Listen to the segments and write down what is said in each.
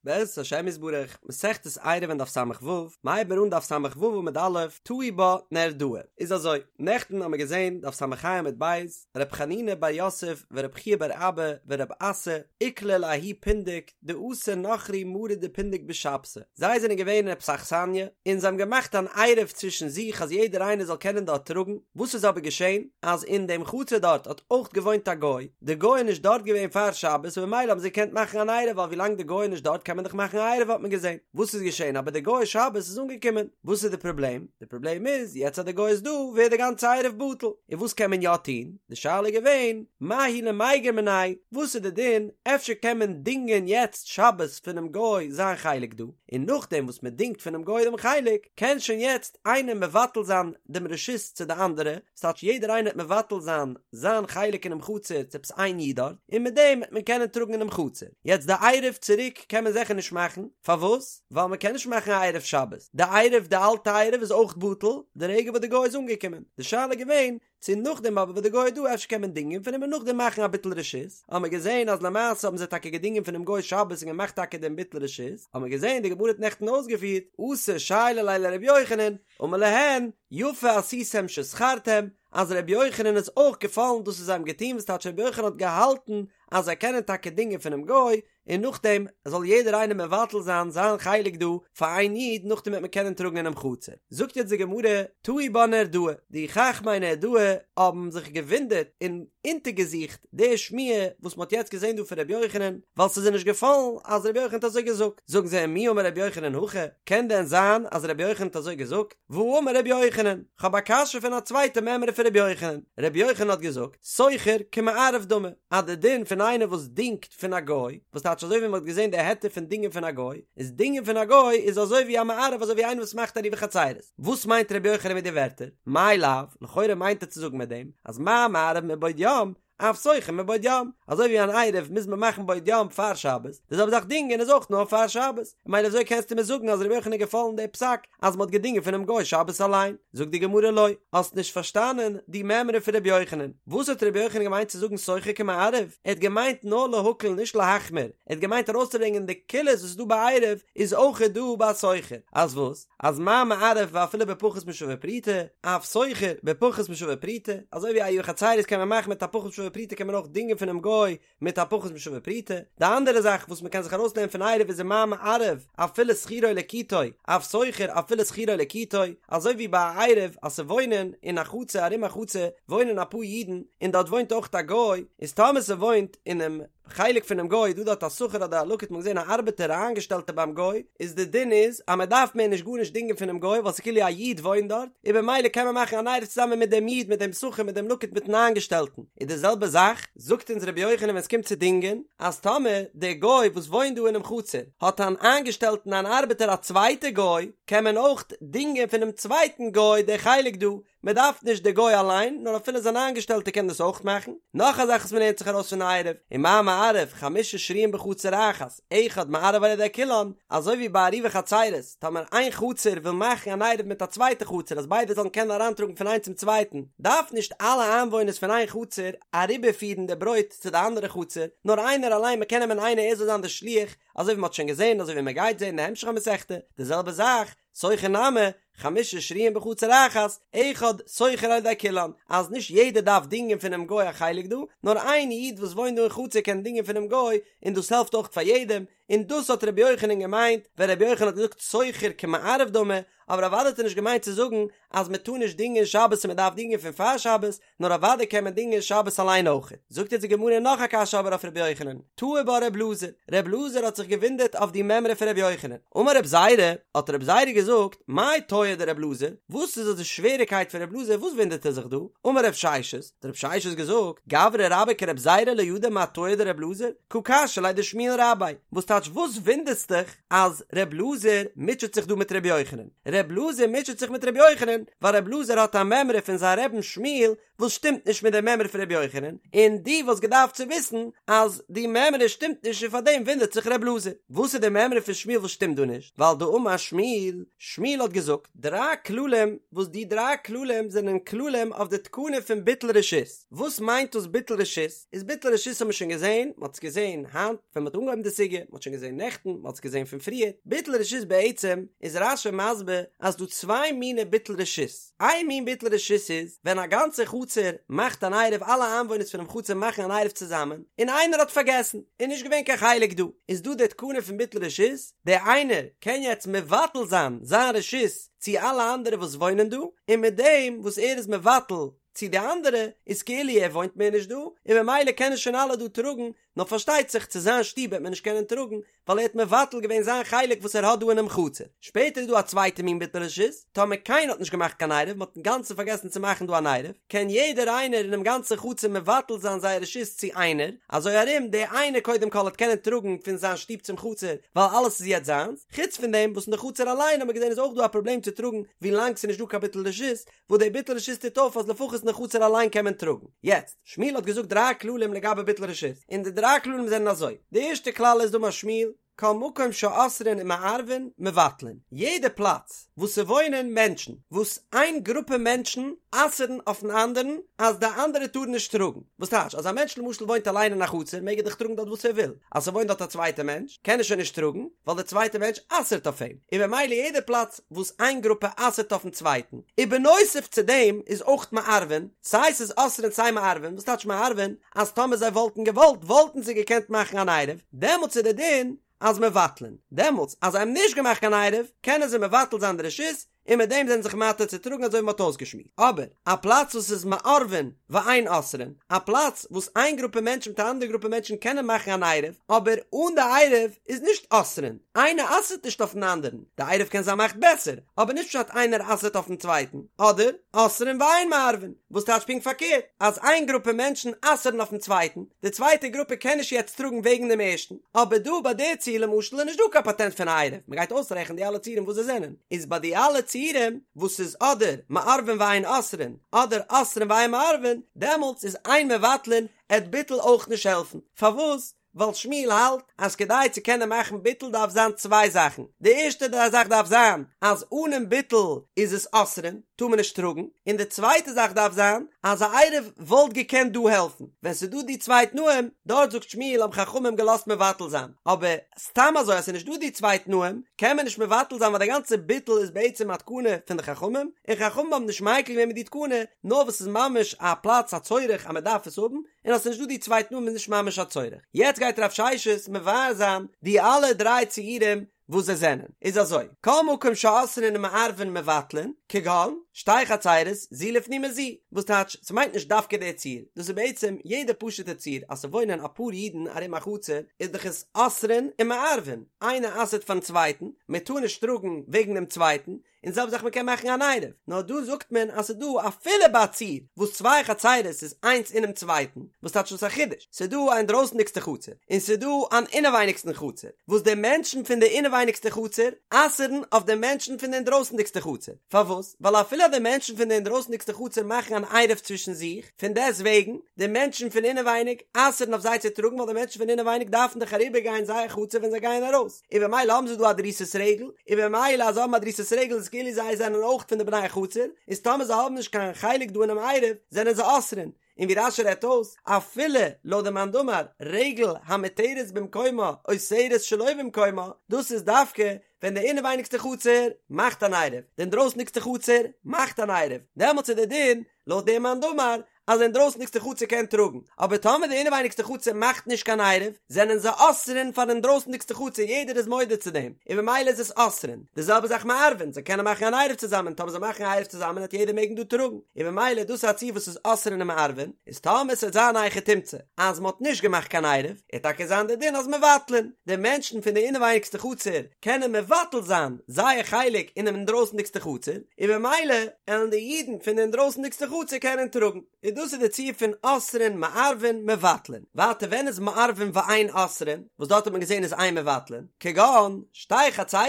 בעזרת השם יתברך, מסכת עירובין דף ס"ו, מ'הייבן מיר אן דף ס"ו עמוד א', תהו בה נהרדעא. איז אזוי, נעכטן האמיר געזען דף ס"ה עמוד ב', ר' חנינא בר יוסף ור' חייא בר אבא ור' אסי, איקלעו לההוא פונדק דאתא נכרי מרי דפונדק בשבתא, זיי זענען געווען אין עפעס א אכסניא, און זיי האבן געמאכט אן עירוב צווישן זיך אז יעדער איינער זאל קענען דארט טראגן, וואס איז אבער געשען, אז אין דעם חצר דארט האט אויך געוואוינט א גוי, די גוי איז נישט דארט געווען פאר שבת און במילא האבן זיי געקענט מאכן אן עירוב ווייל ווילאנג די גוי איז נישט דארט קען מען דאך מאכן א עירוב האט מען געזען וואס איז געשען אבער די גוי שבת איז אנגעקומען וואס איז די פראבלעם די פראבלעם איז יעצט אז די גוי איז דא ווערט די גאנצע עירוב בטל און וואס קען מען יא טון די שאלה איז געווען מהו למיגר מיניה וואס איז די דין אפשר קען מען דינגען יעצט שבת פונעם גוי זיין חלק דא און נאכדעם וואס מען דינגט פונעם גוי דעם חלק קען שוין יעצט איינער מבטל זיין דעם רשות צו די אנדערע ס'טייטש יעדער איינער וועט מבטל זיין זיין חלק אינעם חצר צו עפעס איין איד דארט, און מיט דעם וועט מען קענען טראגן אינעם חצר. יעצט די עירוב צוריק קען מען זיכער נישט מאכן, פארוואס? ווייל מען קען נישט מאכן א עירוב שבת, די עירוב די אלטע עירוב איז אויך בטל די רגע וואס די גוי איז אנגעקומען, די שאלה איז געווען צו נאכדעם אבער וואס די גוי איז דא אפשר קען מען דינגען פון אים און נאכדעם מאכן א ביטול רשות, האט מען געזען אז למעשה האבן זיי טאקע געדינגען פונעם גוי שבת און געמאכט טאקע דעם ביטול רשות, האט מען געזען די גמרא האט נעכטן אויסגעפירט, אתו שיילו ליה לר' יוחנן, אמר להן, יפה עשיתם ששכרתם, אז ר' יוחנן איז אויך געפאלן דאס וואס זיי האבן געטון וואס טייטש ר' יוחנן האט געהאלטן אז זיי קענען טאקע דינגען פונעם גוי און נאכדעם זאל יעדער איינער מבטל זיין זיין חלק דא פאר איין איד נאכדעם וועט מען קענען טראגן אינעם חצר. זאגט יעצט די גמרא, תהו בה נהרדעא, די חכמי נהרדעא האבן זיך געוואונדערט און אונטערגעזוכט די שמועה וואס מ'האט יעצט געזען דא פון ר' יוחנן, ווייל ס'איז זיי נישט געפאלן אז ר' יוחנן האט אזוי געזאגט, זאגן זיי ומי אמר ר' יוחנן הכי, קען דען זיין אז ר' יוחנן האט אזוי געזאגט? והאמר ר' יוחנן, כ'האב א קשיא פון א צווייטע מימרא פון ר' יוחנן, ר' יוחנן האט געזאגט, שוכר כמערב דמי, אז די דין פון איינער וואס דינגט פון א גוי, וואס טייטש אזוי ווי מ'האט געזען די היתר פון דינגען פון א גוי, איז דינגען פון א גוי איז אזוי ווי א מערב אזוי ווי איינער וואס מאכט עירובי חצירות. וואס מיינט ר' יוחנן מיט די ווערטער? מאי לאו, לכאורה מיינט ער צו זאגן מיט דעם, אז מה מערב מבעוד יום, אף שוכר מבעוד יום, אזוי ווי אן עירוב מוז מען מאכן בעוד יום פאר שבת, די זעלבע זאך דינגען איז אויך נאר פאר שבת, ממילא וויאזוי קענסטו מיר זאגן אז ר' יוחנן איז געפאלן די פסק אז מען האט געדינגען פונעם גוי שבת אליין? זאגט די גמרא לא, האסט נישט פארשטאנען די מימרא פון ר' יוחנן, וואס האט ר' יוחנן געמיינט צו זאגן שוכר כמערב? ער האט געמיינט נאר להקל נישט להחמיר, ער האט געמיינט ארויסצוברענגען די קולות וואס איז דא ביי עירוב איז אויך דא ביי שוכר, אז וואס? אז מה מערב ואפילו בפחות משווה פרוטה, אף שוכר בפחות משווה פרוטה, אזוי ווי עירובי חצירות קען מען מאכן מיט א פחות משווה פרוטה קען מען אויך דינגען פונעם גוי מיט א פחות משווה פרוטה, די אנדערע זאך וואס מען קען זיך ארויסלערנען פון עירוב איז ומה מערב אפילו שכירו לקיטו, אף שוכר אפילו שכירו לקיטו, אזוי ווי ביי א עירוב אז ס'וואוינען אין א חצר ארום א חצר וואוינען אפאר אידן און דארט וואוינט אויך א גוי, איז טאמער ס'וואוינט אינעם חלק פונעם גוי איז דא דארט א שכיר אדער א לקיט מ'האט געזען א ארבעטער א איינגעשטעלטער ביים גוי איז די דין איז אז מען דארף מער נישט גארנישט דינגען פונעם גוי ווייל ס'איז כאילו א איד וואוינט דארט און במילא קען מען מאכן אן עירוב צוזאמען מיט דעם איד מיט דעם שכיר מיט דעם לקיט מיטן איינגעשטעלטן איז די זעלבע זאך זאגט אונז רבי יוחנן ווען ס'קומט צו דינגען אז טאמער דער גוי וואס וואוינט דא אינעם חצר האט אן איינגעשטעלטן אן ארבעטער א צווייטע גוי קען מען אויך דינגען פונעם צווייטן גוי די חלק דא מען דארף נישט די גוי אליין, נאר אפילו זיין איינגעשטעלטע קען דאס אויך מאכן. נאך א זאך וואס מען לערנט זיך ארויס פון עירוב, ומה מערב, חמשה שרויים בחצר אחת, אחד מערב על ידי כולן, אזוי ווי ביי עירובי חצירות, טאמער איין חצר וויל מאכן אן עירוב מיט א צווייטע חצר אז ביידע זאלן קענען אריינטראגן פון איינס צום צווייטן, דארף נישט אלע איינוואוינערס פון איין חצר אריבערפירן די ברויט צו די אנדערע חצר, נאר איינער אליין, מען קען נעמען איינער ער זאל זיין די שליח, אזוי ווי מען האט שוין געזען, אזוי ווי מען גייט זען אין די המשך המסכתא, די זעלבע זאך, שוכר נמי, חמשה שרויים בחצר אחת, אחד שוכר על ידי כולן, אז נישט יעדער דארף דינגען פונעם גוי א חלק דא, נאר איין איד וואס וואוינט דא אין חצר קען דינגען פונעם גוי, און דאס העלפט אויך פאר יעדעם, און דאס האט רבי יוחנן געמיינט ווען רבי יוחנן האט געזאגט שוכר כמערב דמי, אבער אוודאי האט ער נישט געמיינט צו זאגן אז מען טאר נישט דינגען שבת און מען דארף דינגען פון פאר שבת, נאר אוודאי קען מען דינגען שבת אליין אויך. זאגט יעצט די גמרא נאך א קשיא אבער אויף רבי יוחנן, תהי בה רב אלעזר, רב אלעזר האט זיך געוואונדערט אויף די מימרא פון רבי יוחנן, אמר רב זירא, האט רב זירא געזאגט, מאי תהא דרב אלעזר, וואס איז אזוי שוועריקייט פון רב אלעזר, וואס וואונדערט ער זיך דא, אמר רב ששת, האט רב ששת געזאגט, גברא רבה כרב זירא לא ידע מה תהא דרב אלעזר, קא קשיא ליה דשמואל רביה, וואס טייטש וואס וואונדערסט דיך אז רב אלעזר מוטשעט זיך דא מיט רבי יוחנן? ר' אלעזר מוטשעט זיך מיט ר' יוחנן, ווייל ר' אלעזר האט א מימרא פון זיין רבי'ן שמואל וואס שטימט נישט מיט די מימרא פון ר' יוחנן, און דו וואלסט געדארפט צו וויסן אז די מימרא שטימט נישט און פארדעם וואונדערט זיך ר' אלעזר. וואס איז די מימרא פון שמואל וואס שטימט דא נישט? ווייל דאמר שמואל, שמואל האט געזאגט דריי כללים וואס די דריי כללים זענען כללים אויף די תקנה פון ביטול רשות. וואס מיינט דאס ביטול רשות? איז ביטול רשות האט מען שוין געזען, מען האט עס געזען היינט ווען מען האט אנגעהויבן די סוגיא, מען האט שוין. שוין געזען נעכטן, מ'האט עס געזען פון פריער, ביטול רשות בעצם איז רש"י מסביר אז ס'דא צוויי מיני ביטול רשות, איין מין ביטול רשות איז ווען א גאנצע חצר מאכט אן עירוב אלע איינוואוינערס פונעם חצר מאכן אן עירוב צוזאמען, און איינער האט פארגעסן, איז נישט געווען קיין חלק דא, איז דא די תקנה פון ביטול רשות, דער איינער קען יעצט מבטל זיין זיין רשות צו אלע אנדערע וואס וואוינען דא, און מיט דעם וואס ער איז מבטל צו די אנדערע איז כאילו ער וואוינט מער נישט דא, און ממילא קענען שוין אלע דא טראגן, נאר פארשטייט זיך צו זיין שטוב וועט מען נישט קענען טראגן, ווייל ער האט מבטל געווען זיין חלק וואס ער האט דא אינעם חצר. שפעטער איז דא א צווייטע מין ביטול רשות, טאמער קיינער האט נישט געמאכט קיין עירוב, מען האט אינגאנצן פארגעסן צו מאכן דא אן עירוב, קען יעדער איינער אינעם גאנצן חצר מבטל זיין זייער רשות צו איינער, אזוי ארום דער איינער קודם כל וועט קענען טראגן פון זיין שטוב צום חצר, ווייל אלעס איז יעצט זיינס, חוץ פון דעם וואס אין די חצר אליין האט מען געזען איז אויך דא א פראבלעם צו טראגן ווילאנג ס'איז נישט דא קיין ביטול רשות, וואס דער ביטול רשות טוט אויף אז לפחות אין די חצר אליין קען מען טראגן. יעצט, שמואל האט געזאגט דריי כללים לגבי ביטול רשות, און די דריי כללים זענען אזוי, די ערשטע כלל איז דאמר שמואל, כל מקום שאוסרין ומערבין מבטלין, יעדע פלאץ וואס ס'וואוינען מענטשן, וואס איין גרופע מענטשן אסר'ן אויפן אנדערן אז די אנדערע טארן נישט טראגן, וואס טייטש אז א מענטש למשל וואוינט אליין אין א חצר מעג ער דאך טראגן דארט וואס ער וויל, אז ס'וואוינט דארט א צווייטע מענטש קען ער שוין נישט טראגן, ווייל דער צווייטע מענטש אסר'ט אויף אים, און ממילא יעדע פלאץ וואס איין גרופע אסר'ט אויפן צווייטן, ובנוסף צו דעם איז אויך מערבין, סיי ס'איז אוסרין סיי מערבין, וואס טייטש מערבין? אז טאמער זיי וואלטן געוואלט וואלטן זיי געקענט מאכן אן עירוב, דעמאלטס איז דער דין אז מבטלין, דעמאלטס אז זיי האבן נישט געמאכט קיין עירוב קענען זיי מבטל זיין די רשות, און מיט דעם זענען זיך מתיר צו טראגן אזוי ווי מ'האט אויסגעשמועסט. אבער א פלאץ וואס איז מערבין ואין אוסרין, א פלאץ וואס איין גרופע מענטשן מיט א אנדערע גרופע מענטשן קענען מאכן אן עירוב, אבער אן די עירוב איז נישט אוסרין, איינער אסר'ט נישט אויפן אנדערן, די עירוב קען זיין מאכט בעסער, אבער נישט פשט איינער אסר'ט אויפן צווייטן, אדער אוסרין ואין מערבין, וואס טייטש פונקט פארקערט, אז איין גרופע מענטשן אסר'ן אויפן צווייטן, די צווייטע גרופע קען נישט יעצט טראגן וועגן דעם ערשטן, אבער דא ביי די ציור למשל איז נישט דא קיין פאטענט פון א עירוב, מ'גייט אויסרעכענען די אלע ציורים וואס זיי זענען, איז ביי די אלע ציורים וואס איז אדער מערבין ואין אוסרין, אדער אוסרין ואין מערבין, דעמאלטס איז אין מבטלין, עט ביטול אויך נישט העלפן, פארוואס? ווייל שמואל האלט אז כדי צו קענען מאכן ביטול דארף זיין צוויי זאכן, די ערשטע זאך דארף זיין אז אנעם ביטול איז עס אוסרין, טאר מען נישט טראגן, און די צווייטע זאך דארף זיין אז א עירוב וואלט געקענט דא העלפן, ווען ס'איז דא די צוויי תנאים, דארט זאגט שמואל האבן חכמים געלאזט מבטל זיין, אבער סתם אזוי אז ס'איז נישט דא די צוויי תנאים קען מען נישט מבטל זיין ווייל די גאנצע ביטול איז בעצם א תקנה פון די חכמים, און חכמים האבן נישט מיקל געווען מיט די תקנה, נאר וואס ס'איז ממש א פלאץ א צורך אז מ'דארף עס האבן, און אז ס'איז נישט דא די צוויי תנאים איז נישט ממש א צורך. יעצט גייט רב ששת מבאר זיין די אלע דריי ציורים וואס זיי זענען. איז אזוי, כל מקום שאוסרין ומערבין מבטלין, כגון, שתי חצירות, זו לפנים מזו, וואס טייטש, ס'מיינט נישט דווקא די ציור, דאס איז בעצם יעדע פשוטע ציור, אז ס'וואוינען אפאר אידן ארום א חצר, איז דאך עס אוסרין ומערבין, איינער אסר'ט פארן צווייטן, מ'טאר נישט טראגן וועגן דעם צווייטן, און זעלבע זאך מ'קען מאכן אן עירוב, נאר דא זאגט מען אז ס'איז דא אפילו ביי א ציור וואס צוויי חצירות איז איינס אינעם צווייטן, וואס טייטש דאס א חידוש? ס'איז דא א אינדרויסנדיגסטע חצר, און ס'איז דא אן אינעווייניגסטן חצר, וואס די מענטשן פון די אינעווייניגסטע חצר אסר'ן אויף די מענטשן פון די אינדרויסנדיגסטע חצר, פארוואס? ווייל אפילו אז די מענטשן פון די אינדרויסנדיגסטע חצר מאכן אן עירוב צווישן זיך, פון דעסט וועגן, די מענטשן פון אינעווייניג אסר'ן אויף זיי צו טראגן ווייל די מענטשן פון אינעווייניג דארפן דאך אריבערגיין זייער חצר ווען זיי גייען ארויס. און במילא האבן זיי דא א דריסת רגל, און במילא אז זיי האבן א דריסת רגל איז כאילו זיי זענען אויך פון די בני החצר, איז טאמער זיי האבן נישט קיין חלק דא אינעם עירוב זענען זיי אוסרין, און ווי רש"י רעדט אויס, אפילו לויט די מאן דאמר רגל המותרת במקומה אוסרת שלא במקומה, דאס איז דווקא ווען די אינעווייניגסטע חצר מאכט אן עירוב, די אינדרויסניגסטע חצר מאכט אן עירוב, דעמאלטס איז די דין לויט דעם מאן דאמר אז די אינדרויסניגסטע חצר קען טראגן, אבער טאמער די אינעווייניגסטע חצר מאכט נישט קיין עירוב, זענען זיי אוסרין פאר די אינדרויסניגסטע חצר, יעדער איז מודה צו דעם, און במילא איז עס אוסרין. די זעלבע זאך מערבין, זיי קענען מאכן אן עירוב צוזאמען, טאמער זיי מאכן א עירוב צוזאמען וועט יעדער מעגן דא טראגן, און במילא דאס איז א ציור וואס איז אוסרין און מערבין, איז טאמער ס'וועט זיין א היכי תמצא אז מ'האט נישט געמאכט קיין עירוב, וועט טאקע זיין די דין אז מבטלין, די מענטשן פון די אינעווייניגסטע חצר קענען מבטל זיין זייער חלק אינעם אינדרויסנדיגסטע חצר, און במילא עלן די אידן פון די אינדרויסנדיגסטע חצר קענען טראגן, און דאס איז די ציור פון אוסרין מערבין מבטלין. ווייטער ווען איז מערבין ואין אוסרין, וואס דארט האט מען געזען איז אין מבטלין, כגון שתי חצרות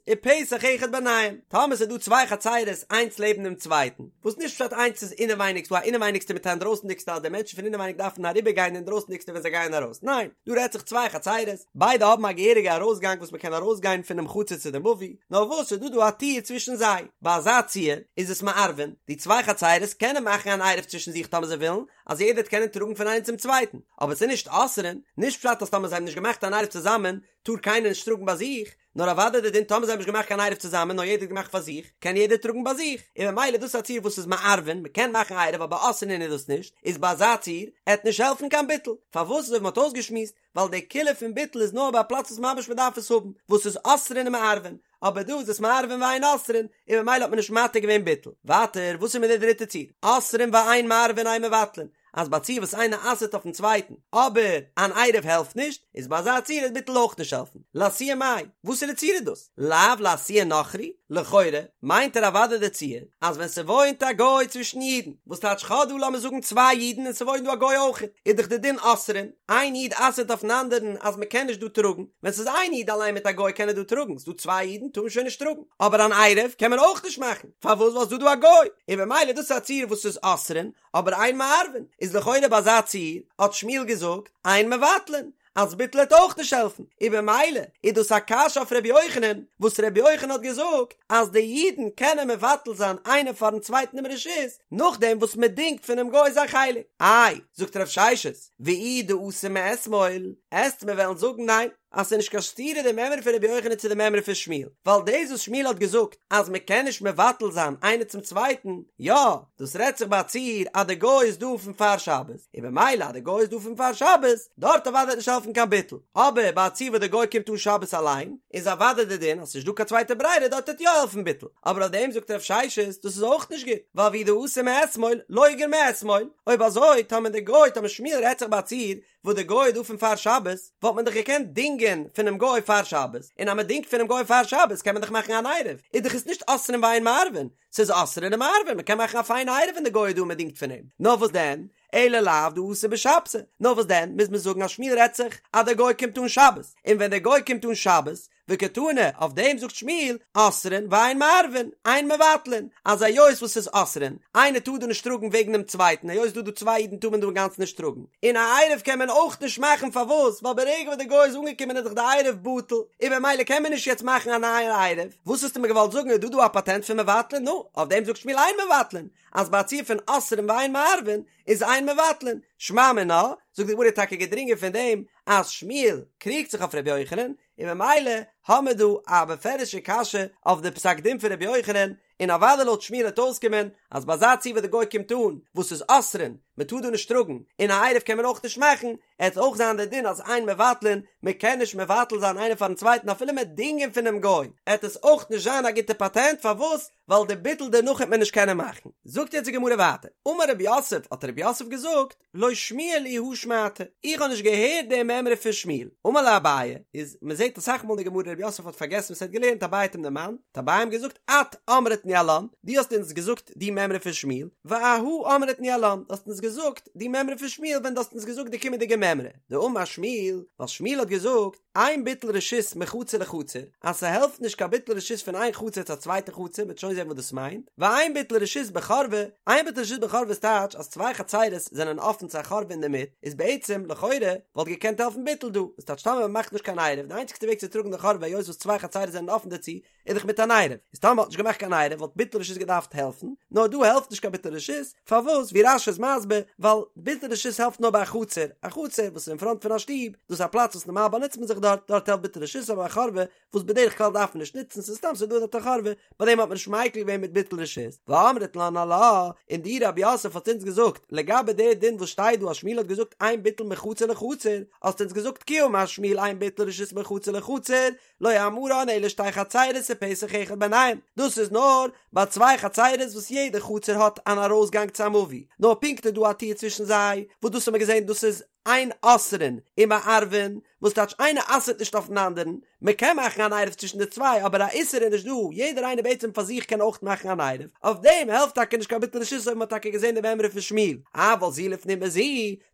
ופתח אחד ביניהם, טאמער ס'איז דא צוויי חצרות איינס לעבן דעם צווייטן, וואס נישט פשט איינס איז אינעווייניג, ס'דא א אינעווייניגסטע מיט א אינדרויסנדיגסטע אז די מענטשן פון אינעווייניג דארפן אריבערגיין די אינדרויסנדיגסטע ווען זיי גייען ארויס, ניין, דא רעדט זיך צוויי חצרות, ביידע האבן א געהעריגע ארויסגאנג וואס מ'קען ארויסגיין פונעם חצר צו די מבוי, נאר וואס ס'איז דא דא א טיר צווישן זיי, ביי אזא ציור איז עס מערבין, די צוויי חצרות קענען מאכן אן עירוב צווישן זיך טאמער זיי ווילן, אז יעדער וועט קענען טראגן פון איינעם צום צווייטן, אבער ס'איז נישט אוסרין, נישט פשט אז טאמער זיי האבן נישט געמאכט אן עירוב צוזאמען. טאר קיינער נישט טראגן ביי זיך, נאר אוודאי די דין טאמער זיי האבן נישט געמאכט קיין עירוב צוזאמען נאר יעדער האט געמאכט פאר זיך, קען יעדער טראגן ביי זיך, און ממילא דאס איז א ציור וואס איז מערבין, מען קען מאכן עירוב אבער אסרין איז דאס נישט, איז ביי אזא ציור עט נישט העלפן קיין ביטול, פארוואס אזוי ווי מען האט אויסגעשמועסט, ווייל די קולא פון ביטול איז נאר ביי א פלאץ וואס ממש מען דארף עס האבן, וואס איז אוסרין ומערבין, אבער דא איז עס מערבין ואין אוסרין, און ממילא האט מען נישט מתיר געווען ביטול. ווייטער, וואס איז מיט די דריטע ציור? אוסרין ואין מערבין אין מבטלין, אז ביי א ציור וואס איינער אסר'ט אויפן צווייטן, אבער אן עירוב העלפט נישט, איז ביי אזא ציור וועט ביטול אויך נישט העלפן. לאתויי מאי, וואסערע ציור איז דאס? לאו לאתויי נכרי? לכאורה, מיינט ער אוודאי די ציור, אז ווען ס'וואוינט א גוי צווישן אידן, וואס טייטש כ'האב דא לאמיר זאגן צוויי אידן און ס'וואוינט דא א גוי אויכעט, איז דאך די דין אוסרין, איין איד אסר'ט אויפן אנדערן אז מ'קען נישט דא טראגן, ווען ס'איז איין איד אליין מיט א גוי קען ער דא טראגן, ס'דא צוויי אידן טאר מען שוין נישט טראגן, אבער אן עירוב קען מען אויך נישט מאכן, פארוואס ווייל ס'דא דא א גוי, און במילא דאס איז א ציור וואס איז אוסרין, אבער אין מערבין, איז לכאורה ביי אזא ציור האט שמואל געזאגט אין מבטלין, אז ביטול העט אויך נישט העלפן, און במילא איז דאס א קשיא אויף ר' יוחנן, וואס ר' יוחנן האט געזאגט אז די אידן קענען מבטל זיין איינער פארן צווייטן דעם רשות, נאכדעם וואס מען דינגט פונעם גוי זיין חלק. איי, זאגט רב ששת, ואי דאתא מאתמול, עסט מיר וועלן זאגן ניין, אז ס'איז נישט קיין סתירה די מימרא פון רבי יוחנן צו די מימרא פון שמואל, ווייל דאס וואס שמואל האט געזאגט אז מען קען נישט מבטל זיין איינער צום צווייטן, יא, דאס רעדט זיך ביי א ציור אז די גוי איז דא פון פאר שבת, און במילא אז די גוי איז דא פון פאר שבת, דארט אוודאי וועט נישט העלפן קיין ביטול, אבער ביי א ציור וואס די גוי קומט אן שבת אליין, איז אוודאי די דין אז ס'נישט דא קיין צווייטע ברירה דארט וועט יא העלפן ביטול, אבער אויף דעם זאגט רב ששת דאס איז אויך נישט גוט, ווייל ואי דאתא מאתמול, לוגר מאתמול, אויב אזוי טאמער די גוי טאמער שמואל רעדט זיך ביי א ציור וואס די גוי איז דא פון פאר שבת, וואלט מען דאך געקענט דינגען פונעם גוי פאר שבת, און אז מען דינגט פונעם גוי פאר שבת קען מען דאך מאכן אן עירוב, איז דאך עס נישט אוסרין ואין מערבין, ס'איז אוסרין ומערבין, מען קען מאכן א פיינע עירוב ווען די גוי איז דא און מען דינגט פון אים, נאר וואס דען, אלא לאו דאתא בשבתא, נאר וואס דען, מוז מען זאגן אז שמואל רעדט זיך אז דער גוי קומט אן שבת, און ווען דער גוי קומט אן שבת, וקתני, אויף דעם זאגט שמואל, אוסרין ואין מערבין, אין מבטלין, אז היות וואס ס'איז אוסרין, איינער טאר דא נישט טראגן וועגן דעם צווייטן, היות ס'דא דא צוויי אידן טאר מען דא אינגאנצן נישט טראגן, און א עירוב קען מען אויך נישט מאכן פארוואס? ווייל ברגע וואס דער גוי איז אנגעקומען איז דאך די עירוב בטל, און במילא קען מען נישט יעצט מאכן א נייע עירוב, וואס האסטו מיר געוואלט זאגן איז דא דא א פאטענט פון מבטלין? נו, אויף דעם זאגט שמואל אין מבטלין, אז ביי א ציור פון אוסרין ואין מערבין איז אין מבטלין, שמע מינה, זאגט די גמרא טאקע געדרינגען פון דעם אז שמואל קריגט זיך אויף ר' יוחנן, און ממילא האמער דא א בפירוש'ע קשיא אויף די פסק דין פון רבי יוחנן, און אוודאי לויט שמואל וועט אויסקומען אז ביי אזא ציור וואס די גוי קומט אן וואס איז אוסרין, מען טאר דא נישט טראגן, און א עירוב קען מען אויך נישט מאכן, עט אויך זיין די דין אז אין מבטלין, מען קען נישט מבטל זיין איינער פארן צווייטן אפילו מ'עט דינגען פונעם גוי, עט עס אויך נישט זיין א גוטע פאטענט, פארוואס? ווייל די ביטול דערנאך העט מען נישט קענען מאכן. זאגט יעצט די גמרא ווייטער, אמר רב יוסף, האט רב יוסף געזאגט, לא שמיע לי הא שמעתא, איך האב נישט געהערט די מימרא פון שמואל. אמר ליה אביי, איז מען זעט אסאך מאל אין די גמרא רב יוסף האט פארגעסן וואס ער האט געלערנט אביי האט אים דערמאנט, האט אביי אים געזאגט את אמרת ניהלן, דו האסט אונז געזאגט די מימרא פון שמואל, ואהא אמרת ניהלן, דו האסט אונז געזאגט די מימרא פון שמואל ווען דו האסט אונז געזאגט די קומענדיגע מימרא, דאמר שמואל, ווייל שמואל האט געזאגט, אין ביטול רשות מחצר לחצר, אז ס'העלפט נישט קיין ביטול רשות פון איין חצר צו א צווייטע חצר, מ'וועט שוין זען וואס דאס מיינט, ואין ביטול רשות בחורבה, אין ביטול רשות בחורבה איז טייטש אז צוויי חצרות זענען אפן צו א חורבה אינדערמיט, איז בעצם, לכאורה, וואלט געקענט העלפן ביטול דא, וואס טייטש טאמער מ'מאכט נישט קיין עירוב, די איינציגסטע וועג צו טראגן די חורבה היות וואס צוויי חצרות זענען אפן דערצו, איז דאך מיט אן עירוב, איז טאמער מ'האט נישט געמאכט קיין עירוב וואלט ביטול רשות געדארפט העלפן, נאר דא העלפט נישט קיין ביטול רשות, פארוואס? ווי רש"י איז מסביר, ווייל ביטול רשות העלפט נאר ביי א חצר, א חצר וואס איז אין פראנט פון א שטוב, דאס איז א פלאץ וואס נארמאל באנוצט מען זיך דארט, דארט העלפט ביטול רשות, אבער א חורבה וואס בדרך כלל דארף מען נישט נוצן, ס'איז סתם ס'איז דא דארט א חורבה, ביי דעם האט מען נישט מיקל געווען מיט ביטול רשות. ואמרת לן עלה, און דו רב יוסף האסט אונז געזאגט, לגבי די דין וואס שטייט דא אז שמואל האט געזאגט אין ביטול מחצר לחצר, האסט אונז געזאגט כי אמר שמואל אין ביטול רשות מחצר לחצר, לא אמרן אלא שתי חצירות ופתח אחד ביניהם, דאס איז נאר ביי צוויי חצירות וואס יעדע חצר האט אן ארויסגאנג צו א מבוי, נאר פונקט איז דא א טיר צווישן זיי, וואס דאס האט מען געזען דאס איז אין אוסרין ומערבין, וואס טייטש איינער אסר'ט נישט אויפן אנדערן, מען קען מאכן אן עירוב צווישן די צוויי אבער א איסור איז נישט דא, יעדער איינער בעצם פאר זיך קען אויך מאכן אן עירוב, אויף דעם העלפט טאקע נישט קיין ביטול רשות אויב מען האט טאקע געזען די מימרא פון שמואל, אבל זו לפנים מזו,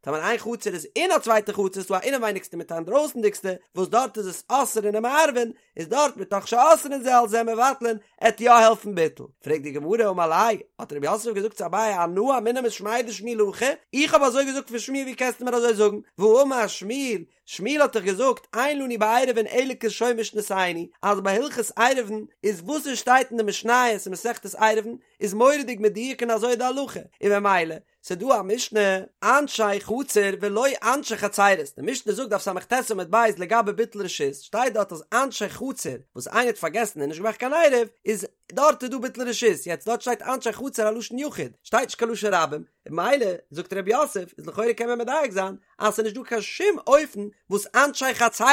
טאמער איין חצר איז אין א צווייטע חצר איז דא א אינעווייניגסטע מיט א אינדרויסנדיגסטע וואס דארט איז עס אוסרין ומערבין איז דארט מתוך שאוסרין זה על זה מבטלין עט יא העלפן ביטול פרעגט די גמרא אמר ליה האט רב יוסף געזאגט צו אביי אנא אמינא משמיה דשמואל הכי איך האב אזוי געזאגט פון שמואל ווי קענסטו מיר אזוי זאגן והאמר שמואל. שמואל האט דאך געזאגט אין לנו בעירובין אלא כלשון משנתינו, אז ביי הלכות עירובין איז וואס עס שטייט אין די משניות אין מסכת עירובין איז מורא'דיג מדויק און אזוי איז די הלכה, און ממילא ס'דא א משנה, אנשי חצר ולא אנשי חצרות, די משנה זאגט דף ס"ט עמוד ב' לגבי ביטול רשות, שטייט דארט אז אנשי חצר וואס איינער האט פארגעסן און נישט געמאכט קיין עירוב, איז דארט איז דא ביטול רשות, יעצט דארט שטייט אנשי חצר א לשון יחיד, שטייט נישט קיין לשון רבים, ממילא זאגט ר' יוסף איז לכאורה קען מען מדייק זיין אז ס'איז נישט דא קיין שום אופן וואס אנשי חצרות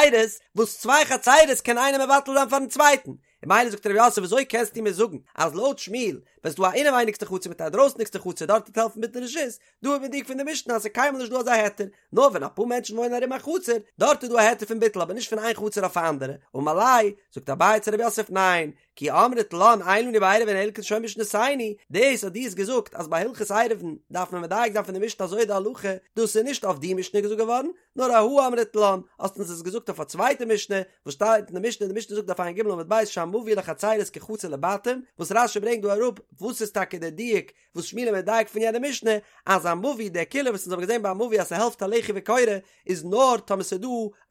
וואס צוויי חצרות קען איינער מבטל זיין פארן צווייטן, ממילא זאגט ר' יוסף וויאזוי קענסטו מיר זאגן אז לויט שמואל ווען ס'דא א אינעווייניגסטע חצר מיט א דרויסנדיגסטע חצר דארט וועט העלפן ביטול רשות, דא איז מדויק פון די משנה אז ס'איז קיינמאל נישט דא אזא היתר, נאר ווען אפאר מענטשן וואוינען ארום א חצר, דארט איז דא א היתר פון ביטול אבער נישט פון איין חצר אויף א אנדערע, אמר ליה, זאגט אביי צו ר' יוסף ניין, כי אמרת לן אין לנו בעירובין אלא כלשון משנתינו, דאס אז דו האסט געזאגט אז ביי הלכות עירובין דארף מען מדייק זיין פון די משנה אזוי איז די הלכה, דאס איז נישט אויף די משנה געזאגט געווארן, נאר אהא אמרת לן, האסט אונז עס געזאגט אויף א צווייטע משנה, וואס שטייט אין די משנה, די משנה זאגט דף ע"ג עמוד ב' שהמבוי לחצרות כחצר לבתים, וואס רש"י ברענגט דא אראפ וואס איז טאקע דער דיוק וואס שמואל איז מדייק פון יענע משנה, אז א מבוי, די קולא וואס אונז האבן געזען ביי א מבוי אז ס'העלפט א לחי וקורה, איז נאר טאמער ס'איז דא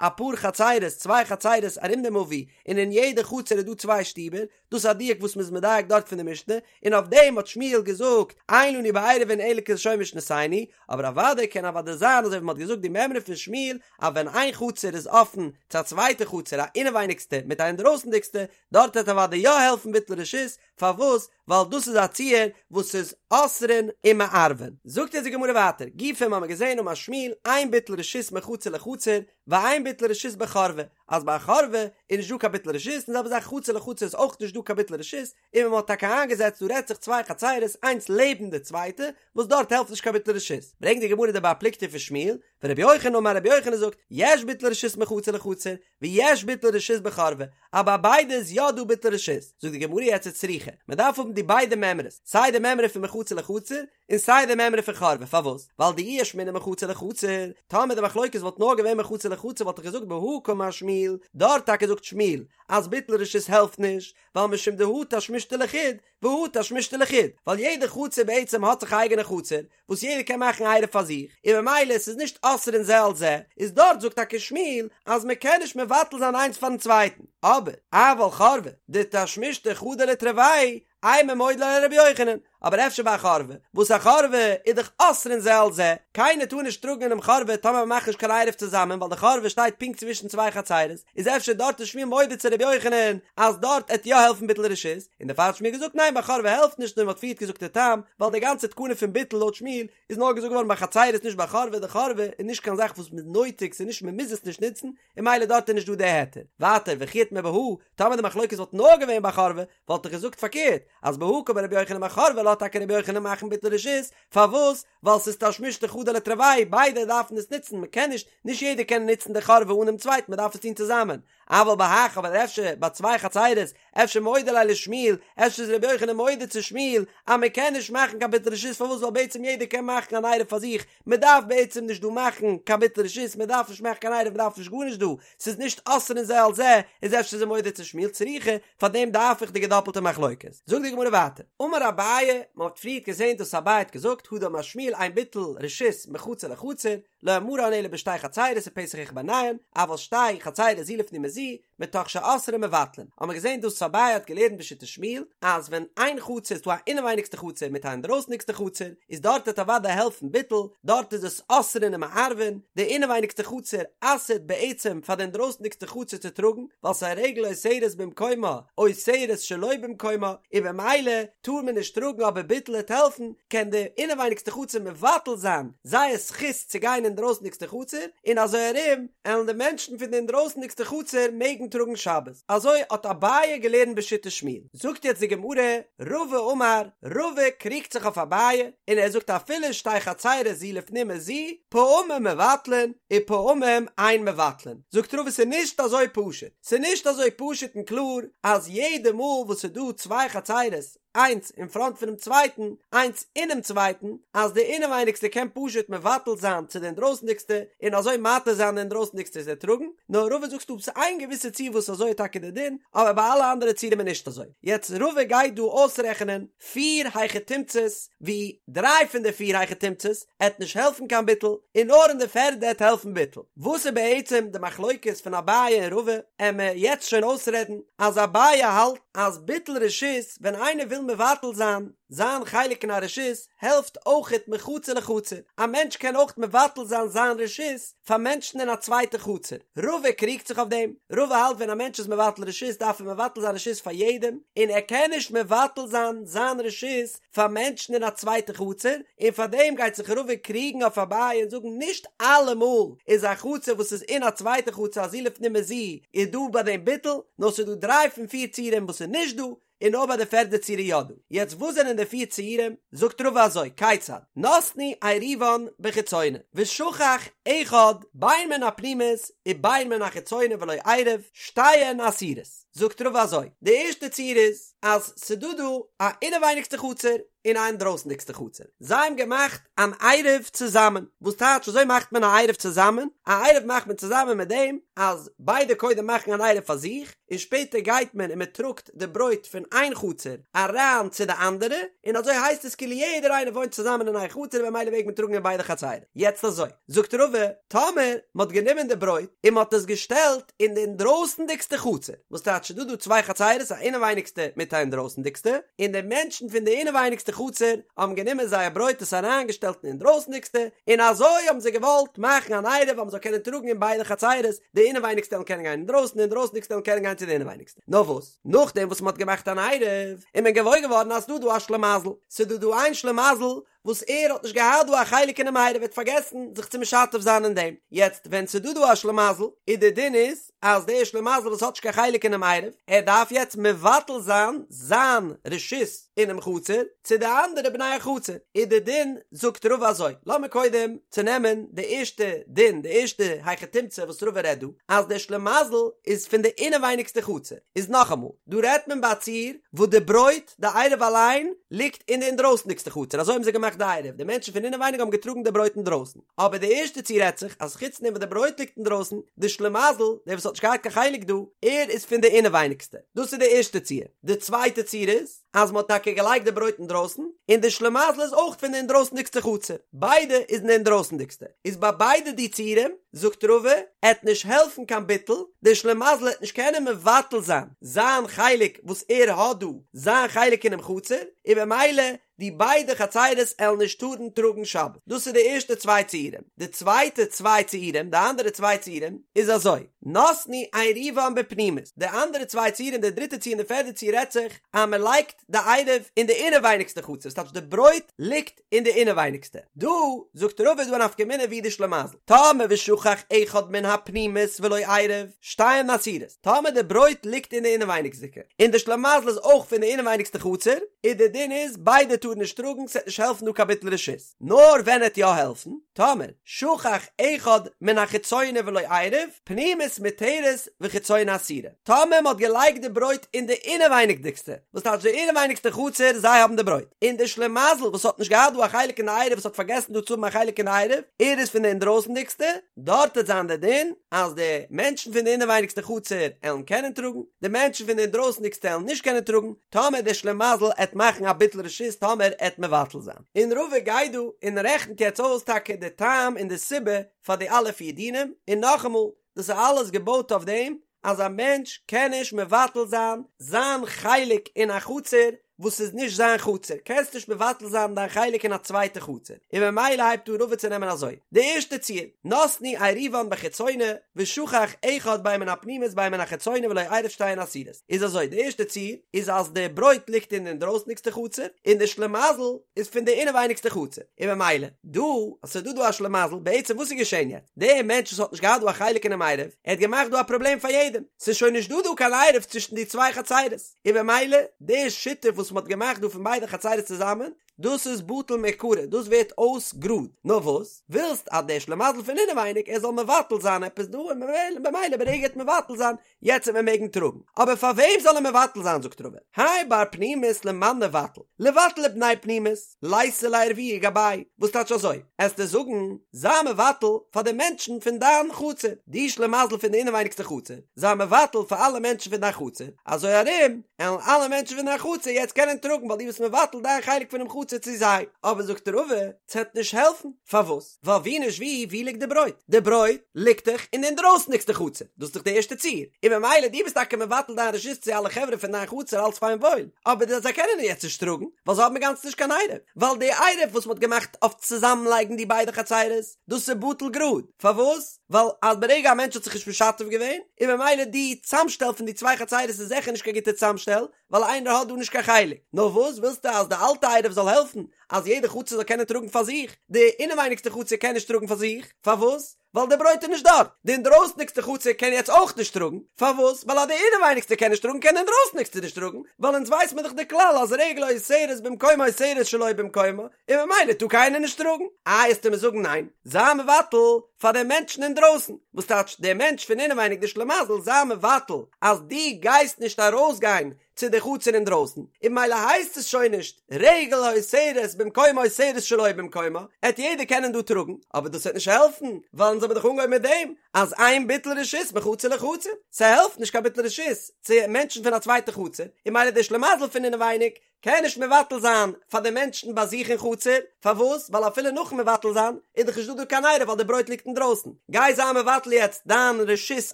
אפאר חצרות, צוויי חצרות ארום די מבוי, און אין יעדע חצר איז דא צוויי שטיבער, דאס איז א דיוק וואס מ'איז מדייק דארט פון די משנה, און אויף דעם האט שמואל געזאגט, אין לנו בעירובין אלא כלשון משנתינו, אבער אוודאי קען אוודאי זיין אזוי ווי מ'האט געזאגט די מימרא פון שמואל, אז ווען איין חצר איז אפן צו א צווייטע חצר א אינעווייניגסטע מיט א אינדרויסנדיגסטע, דארט וועט אוודאי יא העלפן ביטול רשות, פארוואס? ווייל דאס איז א ציור וואס איז אוסרין ומערבין. זאגט אונז די גמרא ווייטער, גופא האמיר געזען אמר שמואל, אין ביטול רשות מחצר לחצר, ואין ביטול רשות בחורבה, אז ביי א חורבה איז נישט דא קיין ביטול רשות, און די זעלבע זאך חצר לחצר איז אויך נישט דא קיין ביטול רשות, און ווען מען האט טאקע איינגעזעצט דא רעדט זיך צוויי חצרות איינס לעבן די צווייטע, וואס דארט העלפט נישט קיין ביטול רשות. ברענגט די גמרא די בר פלוגתא פון שמואל, ורבי יוחנן אמר רבי יוחנן זאגט, יש ביטול רשות מחצר לחצר, ויש ביטול רשות בחורבה, אז ביי ביידע איז יא דא ביטול רשות, זאגט די גמרא יעצט וצריכא, מען דארף האבן די ביידע מימרות, סיי די מימרא פון מחצר לחצר, און סיי די מימרא פון חורבה, פארוואס? ווייל דאי אשמעינן מחצר לחצר, טאמער די מחלוקת וואלט נאר געווען מחצר לחצר וואלט איך געזאגט בהא קאמר שמואל, דארט טאקע זאגט שמואל אז ביטול רשות העלפט נישט, ווייל משום דהא תשמישתא לחוד, והא תשמישתא לחוד, ווייל יעדע חצר בעצם האט זיך א אייגענע חצר, וואס יעדער קען מאכן עירוב פאר זיך, און ממילא עס איז נישט אוסרין זה על זה, איז דארט זאגט טאקע שמואל אז מען קען נישט מבטל זיין איינס פארן צווייטן, אבער אבל חורבה דתשמישתא חדא לתרוייהו, אימא מודה ליה לרבי יוחנן, אבער אפשר ביי א חורבה, וואס א חורבה איז דאך אוסרין זה על זה, קיינער טאר נישט טראגן אינעם חורבה טאמער מען מאכט נישט קיין עירוב צוזאמען ווייל די חורבה שטייט פונקט צווישן צוויי חצרות, איז אפשר דארט איז שמואל מודה צו רבי יוחנן אז דארט עט יא העלפן ביטול רשות, און דערפאר האט שמואל געזאגט ניין ביי חורבה העלפט נישט און מען האט פריערט געזאגט די טעם, ווייל די גאנצע תקנה פון ביטול לויט שמואל איז נאר געזאגט געווארן ביי חצרות נישט ביי חורבה, די חורבה איז נישט קיין זאך וואס מ'איז נויטיג ס'איז נישט מ'מוז עס נישט נוצן, און ממילא דארט איז נישט דא די היתר. ווייטער וכי איתמר בהא, טאמער די מחלוקת וואלט נאר געווען ביי חורבה, וואלט איך געזאגט פארקערט, אז בהא קאמר רבי יוחנן ביי חורבה לאזט טאקע רבי יוחנן מאכן ביטול רשות, פארוואס? ווייל ס'איז תשמישתא חדא לתרוייהו, ביידע דארפן עס נוצן, מ'קען נישט, נישט יעדער קען נוצן די חורבה אן דעם צווייטן, מ'דארף עס טון צוזאמען. אבל בהך, אבער אפשר ביי צוויי חצירות, אפשר מודה ליה לשמואל, אפשר איז רבי יוחנן מודה צו שמואל, אז מ'קען נישט מאכן קיין ביטול רשות, פארוואס? ווייל בעצם יעדער קען מאכן אן עירוב פאר זיך, מען דארף בעצם נישט דא מאכן קיין ביטול רשות, מען דארף נישט מאכן קיין עירוב, מען דארף נישט גארנישט דא, ס'איז נישט אוסרין זה על זה, איז אפשר איז ער מודה צו שמואל צריכא, פאר דעם דארף איך די געדאפלטע מחלוקת. זאגט די גמרא ווייטער, אמר אביי, מען האט פריערט געזען דאס אביי האט געזאגט, הא דאמר שמואל אין ביטול רשות מחצר לחצר, לא אמרן אלא בשתי חצרות ופתח אחד ביניהן, אבל שתי חצרות זו לפנים מזו, מתוך שאוסרין מבטלין, האט מען געזען דאס אביי האט געלערנט בשיטת שמואל, אז ווען איין חצר איז דא א אינעווייניגסטע חצר מיט א אינדרויסניגסטע חצר, איז דארט וועט אוודאי העלפן ביטול, דארט איז עס אוסרין ומערבין, די אינעווייניגסטע חצר אסר'ט בעצם פאר די אינדרויסניגסטע חצר צו טראגן, ווייל ס'איז רגל אוסרת במקומה, אוסרת שלא במקומה, און במילא טאר מען נישט טראגן אבער ביטול וועט העלפן, קען די אינעווייניגסטע חצר מבטל זיין זייער זכות צו גיין אין דרויסנדיגסטע חצר, און אזוי ארום עלן די מענטשן פון די אינדרויסנדיגסטע חצר מעגן טראגן שבת. אזוי האט אביי געלערנט בשיטת שמואל. זאגט יעצט די גמרא, רבא אמר, רבא קריגט זיך אויף אביי, און ער זאגט אפילו שתי חצרות זו לפנים מזו, פעמים מבטלין ופעמים אין מבטלין. זאגט רבא ס'איז נישט אזוי פשוט. ס'איז נישט אזוי פשוט און קלאר אז יעדע מאל וואס ס'איז דא צוויי חצרות. איינס אין פראנט פונעם צווייטן, איינס אינעם צווייטן, אז די אינעווייניגסטע קען פשוט מבטל זיין צו די אינדרויסנדיגסטע און אזוי מתיר זיין די אינדרויסנדיגסטע צו טראגן, נאר רבא זאגט ס'דא איין געוויסע ציור וואס אזוי איז טאקע די דין, אבער ביי אלע אנדערע ציורים איז נישט אזוי. יעצט רבא גייט דא אויסרעכענען פיר היכי תמצא'ס, ווי דריי פון די פיר היכי תמצא'ס עט נישט העלפן קיין ביטול, און נאר אין די פערדע עט העלפן ביטול. וואס איז בעצם די מחלוקת פון אביי און רבא, עמיר יעצט שוין אויסרעדן אז אביי האלט אז ביטול רשות ווען איינער וויל מבטל זיין זיין חלק אין א רשות העלפט אויכעט מחצר לחצר, א מענטש קען אויך מבטל זיין זיין רשות פאר מענטשן אין א צווייטע חצר, רבא קריגט זיך אויף דעם, רבא האלט ווען א מענטש איז מבטל רשות דארף ער מבטל זיין רשות פאר יעדעם, און ער קען נישט מבטל זיין זיין רשות פאר מענטשן אין א צווייטע חצר, און פאר דעם גייט זיך רבא קריגן אויף אביי און זאגן נישט אלעמאל איז א חצר וואס איז אין א צווייטע חצר א זו לפנים מזו איז דא ביי דעם ביטול, נאר ס'איז דא דריי פון פיר ציורים וואס איז נישט דא, און נאר ביי די פערדע ציור איז יא דא. יעצט וואס זענען די פיר ציורים? זאגט רבא אזוי, כיצד? נתנו עירובן בחיצונה, ושכח אחד בין מן הפנימית ובין מן החיצונה ולא עירב, שתיהן אסורות. זאגט רבא אזוי, די ערשטע ציור איז, אז ס'דא דא א אינעווייניגסטע חצר און א אינדרויסנדיגסטע חצר, זיי האבן געמאכט אן עירוב צוזאמען, וואס טייטש אזוי מאכט מען א עירוב צוזאמען? א עירוב מאכט מען צוזאמען מיט דעם אז ביידע קודם מאכן אן עירוב פאר זיך, און שפעטער גייט מען און מען טראגט די ברויט פון איין חצר אריין צו די אנדערע, און אזוי הייסט עס כאילו יעדער איינער וואוינט צוזאמען אין איין חצר און במילא מעג מען טראגן אין ביידע חצרים. יעצט אזוי, זאגט רבא, טאמער מען האט גענומען די ברויט און מען האט עס געשטעלט אין די אינדרויסנדיגסטע חצר, וואס טייטש ס'דא דא צוויי חצרות א אינעווייניגסטע מיט א אינדרויסנדיגסטע, און די מענטשן פון די אינעווייניגסטע חצר האבן גענומען זייער ברויט עס אריינגעשטעלט אין אינדרויסנדיגסטע, און אזוי האבן זיי געוואלט מאכן אן עירוב אז מען זאל קענען טראגן אין ביידע חצרות, די אינעווייניגסטע וועלן קענען גיין אינדרויסן, די אינדרויסנדיגסטע וועלן קענען גיין צו די אינעווייניגסטע. נאר וואס, נאכדעם וואס מען האט געמאכט אן עירוב, איז מען געוואויר געווארן אז ס'דא דא א שלימזל, ס'דא דא איין שלימזל וואס ער האט נישט געהאט דא א חלק אינעם עירוב, ער האט פארגעסן זיך צו משתף זיין אין דעם, יעצט ווען ס'דא דא א שלימזל, איז די דין איז אז דער שלימזל וואס האט נישט קיין חלק אינעם עירוב, ער דארף יעצט מבטל זיין זיין רשות אינעם חצר צו די אנדערע בני החצר, איז די דין זאגט רבא אזוי, לאמיר קודם צונעמען די ערשטע דין, די ערשטע היכי תמצא וואס רבא רעדט דא, אז דער שלימזל איז פון די אינעווייניגסטע חצר, איז נאכאמאל, דא רעדט מען ביי א ציור וואס די ברויט, די עירוב אליין ליגט אין די אינדרויסנדיגסטע חצר, אזוי האבן זיי געמאכט די עירוב, די מענטשן פון אינעווייניג האבן געטראגן די ברויט אינדרויסן, אבער די ערשטע ציור רעדט זיך אז חוץ דעם וואס די ברויט ליגט אינדרויסן, די שלימזל, דער וואס האט נישט געהאט קיין חלק דא, ער איז פון די אינעווייניגסטע, דאס איז די ערשטע ציור, די צווייטע ציור איז, אז מען האט טאקע געלייגט די ברויט אינדרויסן, און די שלימזל איז אויך פון די אינדרויסנדיגסטע חצר, ביידע איז אין די אינדרויסנדיגסטע, איז ביי ביידע די ציורים, זאגט רבא, עט נישט העלפן קיין ביטול, דער שלימזל עט נישט קענען מבטל זיין זיין חלק וואס ער האט דא, זיין חלק אינעם חצר, און במילא די ביידע חצרות עלן נישט טארן טראגן שבת. דאס איז די ערשטע צוויי ציורים. די צווייטע צוויי ציורים, די אנדערע צוויי ציורים, איז אזוי, נתנו עירובן בפנימית, די אנדערע צוויי ציורים, די דריטע ציור און די פערדע ציור רעדט זיך אז מען לייגט די עירוב אין די אינעווייניגסטע חצר, ס'טייטש די ברויט ליגט אין די אינעווייניגסטע. דא זאגט רבא איז דא א נפקא מינה ווי די שלימזל. טאמער ושכח אחד מן הפנימית ולא עירב, שתיהן אסורות. טאמער די ברויט ליגט אין די אינעווייניגסדיגע, און די שלימזל איז אויך פון די אינעווייניגסטע חצר, איז די דין איז ביידע טארן נישט טראגן, ס'עט נישט העלפן דא קיין ביטול רשות. נאר ווען עט יא העלפן? טאמער שכח אחד מן החיצונה ולא עירב, פנימית מותרת וחיצונה אסורה. טאמער מ'האט געלייגט די ברויט אין די אינעווייניגדיגסטע, וואס טייטש די אינעווייניגסטע חצר, זיי האבן די ברויט, און די שלימזל וואס האט נישט געהאט דא א חלק אין די עירוב וואס האט פארגעסן דא צו האבן א חלק אין די עירוב, ער איז פון די אינדרויסנדיגסטע, דארט וועט זיין די דין אז די מענטשן פון די אינעווייניגסטע חצר עלן קענען טראגן, די מענטשן פון די אינדרויסנדיגסטע עלן נישט קענען טראגן, טאמער דער שלימזל עט מאכן א ביטול רשות טאמער עט מבטל זיין. און רבא גייט דא און רעכנט יעצט אויס טאקע די טעם און די סיבה פאר די אלע פיר דינים, און נאכאמאל, דאס איז אלעס געבויט אויף דעם אז א מענטש קען נישט מבטל זיין זיין חלק אין א חצר וואס איז נישט זיין חצר, קענסט נישט מבטל זיין דיין חלק אין א צווייטע חצר, און ממילא הייבט אן רבא צו נעמען אזוי, די ערשטע ציור, נתנו עירובן בחיצונה, ושכח אחד בין מן הפנימית בין מן החיצונה ולא עירב שתיהן אסורות, איז אזוי, די ערשטע ציור איז אז די ברויט ליגט אין די אינדרויסניגסטע חצר, און די שלימזל איז פון די אינעווייניגסטע חצר, און ממילא, דא, אז ס'איז דא דא א שלימזל, בעצם וואס איז געשען יעצט? דער מענטש וואס האט נישט געהאט דא א חלק אינעם עירוב, ער האט געמאכט דא א פראבלעם פאר יעדעם, ס'איז שוין נישט דא דא קיין עירוב צווישן די צוויי חצרות, און במילא, די שיתוף וואס מ'האט געמאכט דא פון ביידע חצרות צוזאמען, דאס איז בטל מעיקרא, דאס ווערט אויס גראד, נאר וואס? ווילסט אז דער שלימזל פון אינעווייניג ער זאל מבטל זיין עפעס דא און ממילא ברגע ער וועט מבטל זיין יעצט וועט מען מעגן טראגן, אבער פאר וועם זאל ער מבטל זיין זאגט רבא, האי בר פנימית למאן ניבטל, ליבטל לבני פנימית, ליתו לערבויי גבייהו, וואס טייטש אזוי? עסטו זאגן זיי מבטל פאר די מענטשן פון דיין חצר, די שלימזל פון די אינעווייניגסטע חצר, זיי מבטל פאר אלע מענטשן פון דיין חצר, אזוי ארום עלן אלע מענטשן פון דיין חצר יעצט קענען טראגן ווייל דו ביסט מבטל דיין חלק פונעם חצר צו זיי, אבער זאגט רבא, ס'עט נישט העלפן, פארוואס? ווייל ווי נישט ווי, ווי ליגט די ברויט? די ברויט ליגט דאך אין די אינדרויסנדיגסטע חצר, דאס איז דאך די ערשטע ציור, און ממילא דו ביסט טאקע מבטל דיין רשות צו אלע חברה פון דיין חצר אלץ פיין וואויל, אבער זיי קענען יעצט נישט טראגן, ווייל זיי האבן אינגאנצן נישט קיין עירוב, ווייל די עירוב וואס מ'האט געמאכט אויף צוזאמלייגן די ביידע חצרות, דאס איז בטל גראד, פארוואס? ווייל אז ברגע א מענטש האט זיך נישט משתף געווען, און ממילא די צאמשטעל פון די צוויי חצרות איז זיכער נישט קיין גוטע צאמשטעל, ווייל איינער האט דא נישט קיין חלק. נאר וואס ווילסטו אז די אלטע עירוב זאל העלפן אז יעדע חצר זאל קענען טראגן פאר זיך? די אינעווייניגסטע חצר קען נישט טראגן פאר זיך, פארוואס? ווייל די ברויט איז נישט דארט. די אינדרויסניגסטע חצר קען יעצט אויך נישט טראגן, פארוואס? ווייל אז די אינעווייניגסטע קען נישט טראגן קען די אינדרויסניגסטע נישט טראגן, ווייל אונז ווייס מיר דאך די כלל אז רגל האוסרת במקומה אוסרת שלא במקומה, און ממילא טאר קיינער נישט טראגן. איי עסטו מיר זאגן ניין, זיי מבטל פאר די מענטשן אינדרויסן, וואס טייטש דער מענטש פון אינעווייניג די שלימזל זיי מבטל אז דו גייסט נישט ארויסגיין צו די חצר אינדרויסן, און ממילא הייסט עס שוין נישט רגל האוסרת במקומה אוסרת שלא במקומה, עט יעדער קענען דא טראגן, אבער דאס וועט נישט העלפן, ווייל אונז האבן דאך אנגעהויבן מיט דעם אז אין ביטול רשות מחצר לחצר, ס'העלפט נישט קיין ביטול רשות צו מענטשן פון א צווייטע חצר, און ממילא דער שלימזל פון אינעווייניג קען נישט מבטל זיין פאר די מענטשן ביי זיך אין חצר, פארוואס? ווייל אפילו נאכן מבטל זיין איז דאך נישט דא דא קיין עירוב ווייל די ברויט ליגט אינדרויסן, גיי זיי מבטל יעצט דיין רשות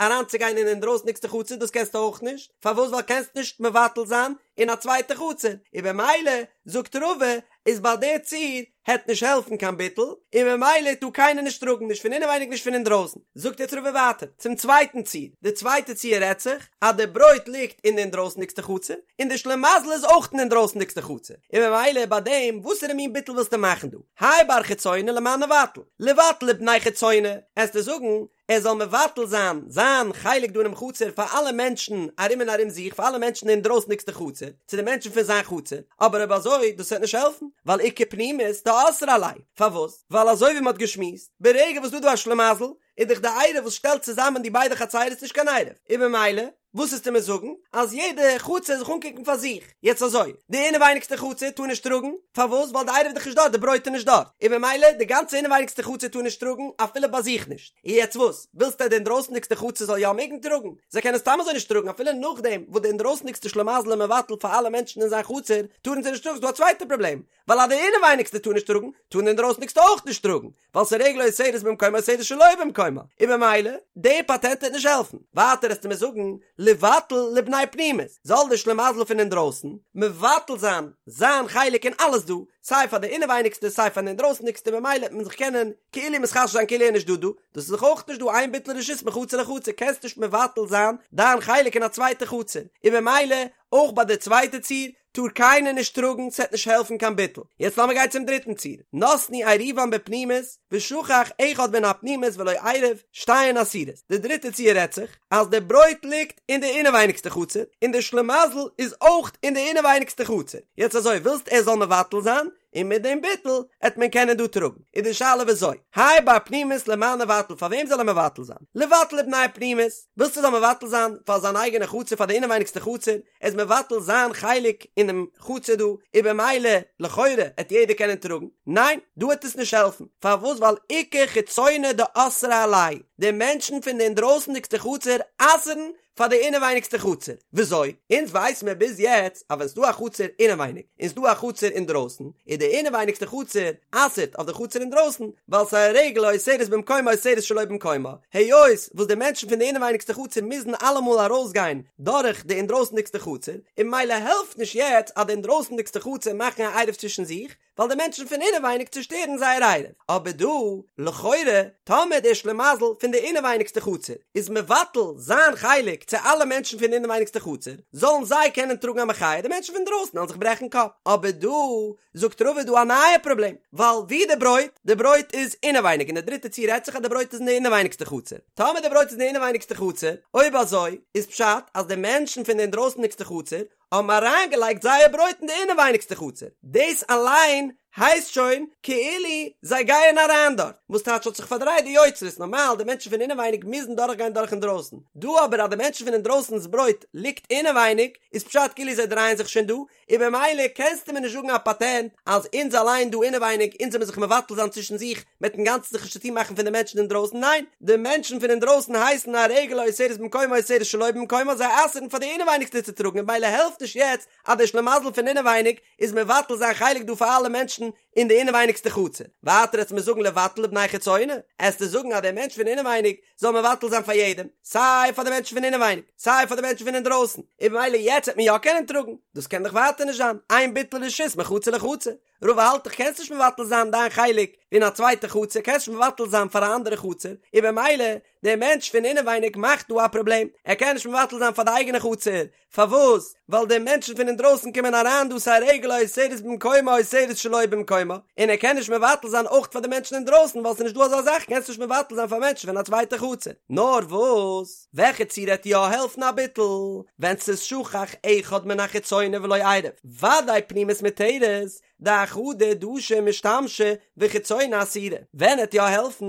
אריינצוגיין אין אינדרויסניגסטע חצר דאס קענסטו אויך נישט, פארוואס? ווייל קענסט נישט מבטל זיין אין א צווייטע חצר, און במילא זאגט רבא איז ביי די ציור העט נישט העלפן קיין ביטול, און ממילא טאר קיינער נישט טראגן נישט פון אינעווייניג נישט פון אינדרויסן. זאגט יעצט רבא ווייטער צום צווייטן ציור, די צווייטע ציור רעדט זיך אז די ברויט ליגט אין די אינדרויסנדיגסטע חצר, און די שלימזל איזאויך אין די אינדרויסנדיגסטע חצר, און ממילא ביי דעם וואסערע מין ביטול ווילסטו מאכן דא? האי בר חיצונה למאן ניבטל? ליבטל לבני חיצונה, עסטו זאגן ער זאל מבטל זיין זיין חלק דא אינעם חצר פאר אלע מענטשן ארום און ארום זיך, פאר אלע מענטשן אין אינדרויסנדיגסטע חצר, צו די מענטשן פון זיין חצר, אבער אויב אזוי דאס וועט נישט העלפן, ווייל איכא פנימית דאסרה עלייהו, פארוואס? ווייל אזוי ווי מען האט געשמועסט, ברגע וואס דא דא א שלימזל, איז דאך די עירוב וואס שטעלט צוזאמען די ביידע חצרות נישט קיין עירוב, און ממילא וואס עסטו מיר זאגן? אז יעדע חצר זיך אנקוקן פאר זיך. יעצט אזוי, די אינעווייניגסטע חצר טאר נישט טראגן, פארוואס? ווייל די עירוב איז דאך נישט דארט, די ברויט איז נישט דארט, און ממילא די גאנצע אינעווייניגסטע חצר טאר נישט טראגן, אפילו ביי זיך נישט. און יעצט וואס? ווילסטו אז די אינדרויסנדיגסטע חצר זאל יא מעגן טראגן? זיי קענען סתם אזוי נישט טראגן, אפילו נאכדעם וואס די אינדרויסנדיגסטע שלימזל איז מבטל פאר אלע מענטשן אין זיין חצר, טארן זיי נישט טראגן, ס'דא א צווייטע פראבלעם, ווייל אז די אינעווייניגסטע טאר נישט טראגן, טארן די אינדרויסנדיגסטע אויך נישט טראגן, ווייל ס'איז רגל האוסרת במקומה אוסרת שלא במקומה, און ממילא, די פאטענט וועט נישט העלפן. ווייטער עסטו מיר זאגן, ליבטל לבני פנימית, זאל די שלימזל פון אינדרויסן, מבטל זיין זיין חלק אין אלעס דא, סיי פאר די אינעווייניגסטע סיי פאר די אינדרויסנדיגסטע ממילא וועט מען זיך קענען כאילו מתחשב זיין כאילו ער איז נישט דא דא, דאס איז דאך אויך נישט דא אין ביטול רשות מחצר לחצר, קענסט נישט מבטל זיין דיין חלק אין א צווייטע חצר, און ממילא אויך ביי די צווייטע ציור, טאר קיינער נישט טראגן, ס'עט נישט העלפן קיין ביטול. יעצט לאמיר גיין צום דריטן ציור, נתנו עירובן בפנימית, ושכח אחד מן הפנימית ולא עירב, שתיהן אסורות. די דריטע ציור רעדט זיך, אז די ברויט ליגט אין די אינעווייניגסטע חצר, און די שלימזל איז אויך אין די אינעווייניגסטע חצר. יעצט אזוי, ווילסט ער זאל מבטל זיין, און מיט דעם ביטול עט מען קענען דא טראגן. איז די שאלה וויאזוי? האי בר פנימית למאן ניבטל, פאר וועם זאל ער מבטל זיין? ליבטל לבני פנימית, ווילסט ער זאל מבטל זיין פאר זיין אייגענע חצר, פאר די אינעווייניגסטע חצר, ער איז מבטל זיין חלק אינעם חצר דא, און במילא לכאורה עט יעדער קענען טראגן, ניין, דא עט עס נישט העלפן, פארוואס ווייל איכא חיצונה דאסרה עלייהו, די מענטשן פון די אינדרויסנדיגסטע חצר אסר'ן פאר די אינעווייניגסטע חצר, וויאזוי? אונז ווייס מיר ביז יעצט אז ווען ס'דא א חצר אינעווייניג און ס'דא א חצר אינדרויסן, איז די אינעווייניגסטע חצר אסר'ט אויף די חצר אינדרויסן, ווייל ס'איז א רגל האוסרת במקומה אוסרת שלא במקומה, היות וואס די מענטשן פון די אינעווייניגסטע חצר מוזן אלעמאל ארויסגיין דורך די אינדרויסנדיגסטע חצר, און ממילא העלפט נישט יעצט אז די אינדרויסנדיגסטע חצר מאכן א עירוב צווישן זיך, ווייל די מענטשן פון אינעווייניג צושטערן זייער עירוב. אבער דא, לכאורה, טאמער דער שלימזל פון די. פון די אינעווייניגסטע חצר איז מבטל זיין חלק צו אלע מענטשן פון די אינעווייניגסטע חצר, זאלן זיי קענען טראגן א מחיה, די מענטשן פון דרויסן וועלן זיך ברעכן קאפ. אבער דא זאגט רבא איז דא א נייע פראבלעם, ווייל ווי די ברויט? די ברויט איז אינעווייניג, און די דריטע ציור רעדט זיך אז די ברויט איז אין די אינעווייניגסטע חצר. טאמער די ברויט איז אין די אינעווייניגסטע חצר, אויב אזוי איז פשט אז די מענטשן פון די אינדרויסנדיגסטע חצר האבן אריינגעלייגט זייער ברויט אין די אינעווייניגסטע חצר, דאס אליין הייסט שוין כאילו זיי גייען אריין דארט, וואס טייטש האט זיך פארדרייט די יוצרות, נארמאל די מענטשן פון אינעווייניג מוזן דורכגיין דורך אינדרויסן, דא אבער אז די מענטשן פון אינדרויסן'ס ברויט ליגט אינעווייניג, איז פשט כאילו זיי דרייען זיך שוין דא, און במילא קענסטו מיר נישט זאגן א פאטענט אז אונז אליין דא אינעווייניג אונז זאל מיר זיך מבטל זיין צווישן זיך מ'עט אינגאנצן זיך נישט צוטון מאכן פון די מענטשן אינדרויסן, ניין, די מענטשן פון אינדרויסן הייסן א רגל האוסרת במקומה אוסרת שלא במקומה זיי אסר'ן פאר די אינעווייניגסטע צו טראגן און במילא העלפט נישט יעצט אז דער שלימזל פון אינעווייניג איז מבטל זיין חלק דא פאר אלע מענטשן אין די אינעווייניגסטע חצר. ווייטער עסט מיר זאגן לבטל לבני חיצונה, עסטו זאגן אז דער מענטש פון אינעווייניג זאל מבטל זיין פאר יעדעם, סיי פאר די מענטשן פון אינעווייניג, סיי פאר די מענטשן פון אינדרויסן, און במילא יעצט וועט מען יא קענען טראגן, דאס קען דאך ווייטער נישט זיין, אין ביטול רשות מחצר לחצר, רבא האלט דאך קענסט נישט מבטל זיין דיין חלק אין א צווייטע חצר, קענסט נישט מבטל זיין פאר א אנדערע חצר, און במילא דער מענטש פון אינעווייניג מאכט דא א פראבלעם, ער קען נישט מבטל זיין פאר די אייגענע חצר, פארוואס? ווייל די מענטשן פון אינדרויסן קומען אריין דא ס'איז א רגל האוסרת במקומה אוסרת שלא במקומה, און ער קען נישט מבטל זיין אויך פאר די מענטשן אינדרויסן ווייל ס'איז נישט דא אזא זאך קענסט נישט מבטל זיין פאר מענטשן פון א צווייטע חצר. נאר וואס? וועלכע ציור עט יא העלפן א ביטול? ווען ס'איז שכח אחד מן החיצונה ולא עירב, ודאי פנימית מותרת, דאחדא דשא ומשתמשי וחיצונה אסירה. ווען עט יא העלפן?